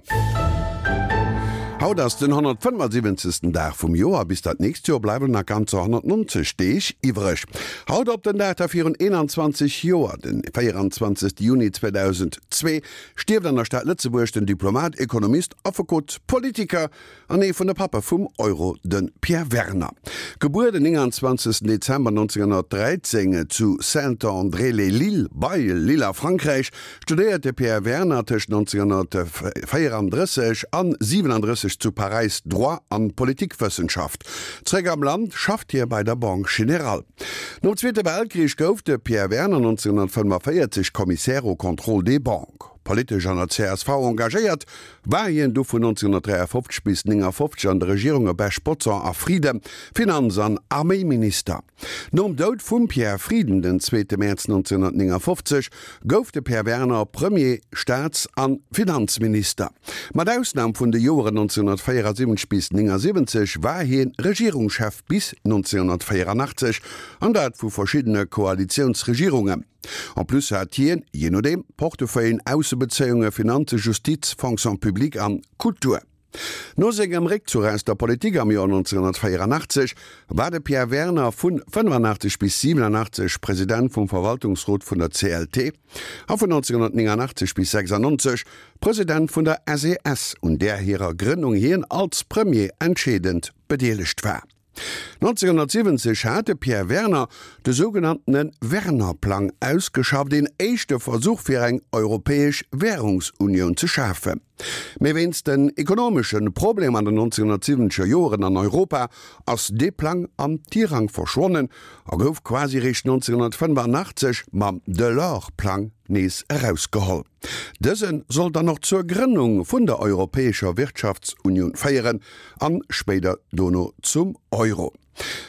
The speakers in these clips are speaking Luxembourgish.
Moien. Haut ass den 175. Dag vum Joer. Bis dat nächst Joer bleiwen nach ganzer 190 Deeg iwwreg. Haut op den Dag da virun 21 Joer, den 24. Juni 2002, stierft an der Stad Lëtzebuerg den Diplomat, Ekonomist, Affekot, Politiker an ee vun de Pappe vum Euro, de Pierre Werner. Gebuer den 29 Dezember 1913 zu Saint-André-lès-Lille bei Lille a Frankräich, studéiert de Pierre Werner tëscht 1934 an 37 zu Paräis Droit an Politikwëssenschaft. Zeréck am Land schafft hie bei der Banque Générale. Nom Zweete Weltkrich gouf de Pierre Werner 1945 Commissaire au contrôle des banques. Politesch an der csv engagéiert, war hien du vun 1953 bis 1959 an de Regierunge Bech, Bodson a Frieden Finanz an Arméiminister. Nom Doud vum Pierre Frieden den zweete Mäerz 1959 gouf de Pierre Werner Premier, Staats an Finanzminister. Mat Ausnam vun de Joeren 1974 bis 1979 war hien Regierungschef bis 1984, an dat vu verschiddene Koalitiounsregierungen. En plus hat hien, jee nodeem, d'Portefeuillen Aussebezéiungen, Finanzen, Justiz, Fonction publique an Kultur. No sengem Réckzuch aus der Politik am Joer 1984 war de Pierre Werner vun 85 bis 87 President vum Verwaltungsrot vun der CLT a vun 1989 bis 96 President vun der SES, un där hirer Grënnung hien als Premier entscheedend bedeelegt war. 1970 hat de Pierre Werner de sougenanntene Werner-Plang ausgeschafft, een éischte Versuch fir eng europäesch Wärungsunioun ze schafen. Mee wéinst den ekonomesche Problemer an den 1970er Joeren an Europa ass dee Plang am Tirang verschwonnen a gouf quasi réischt 1985 mam Delors-Plang nees erausgeholl. Dëse soll dann och zur Grënnung vun der Europäescher Wirtschaftsunioun féieren an spéider dono zum Euro.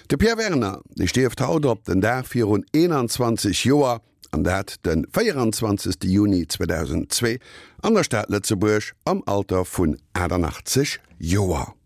De Pierre Werner, dee stierft haut op den Dag virun 21 Joer, an dat de 24. Juni 2002 an der Stad Lëtzebuerg am Alter vun 88 Joer.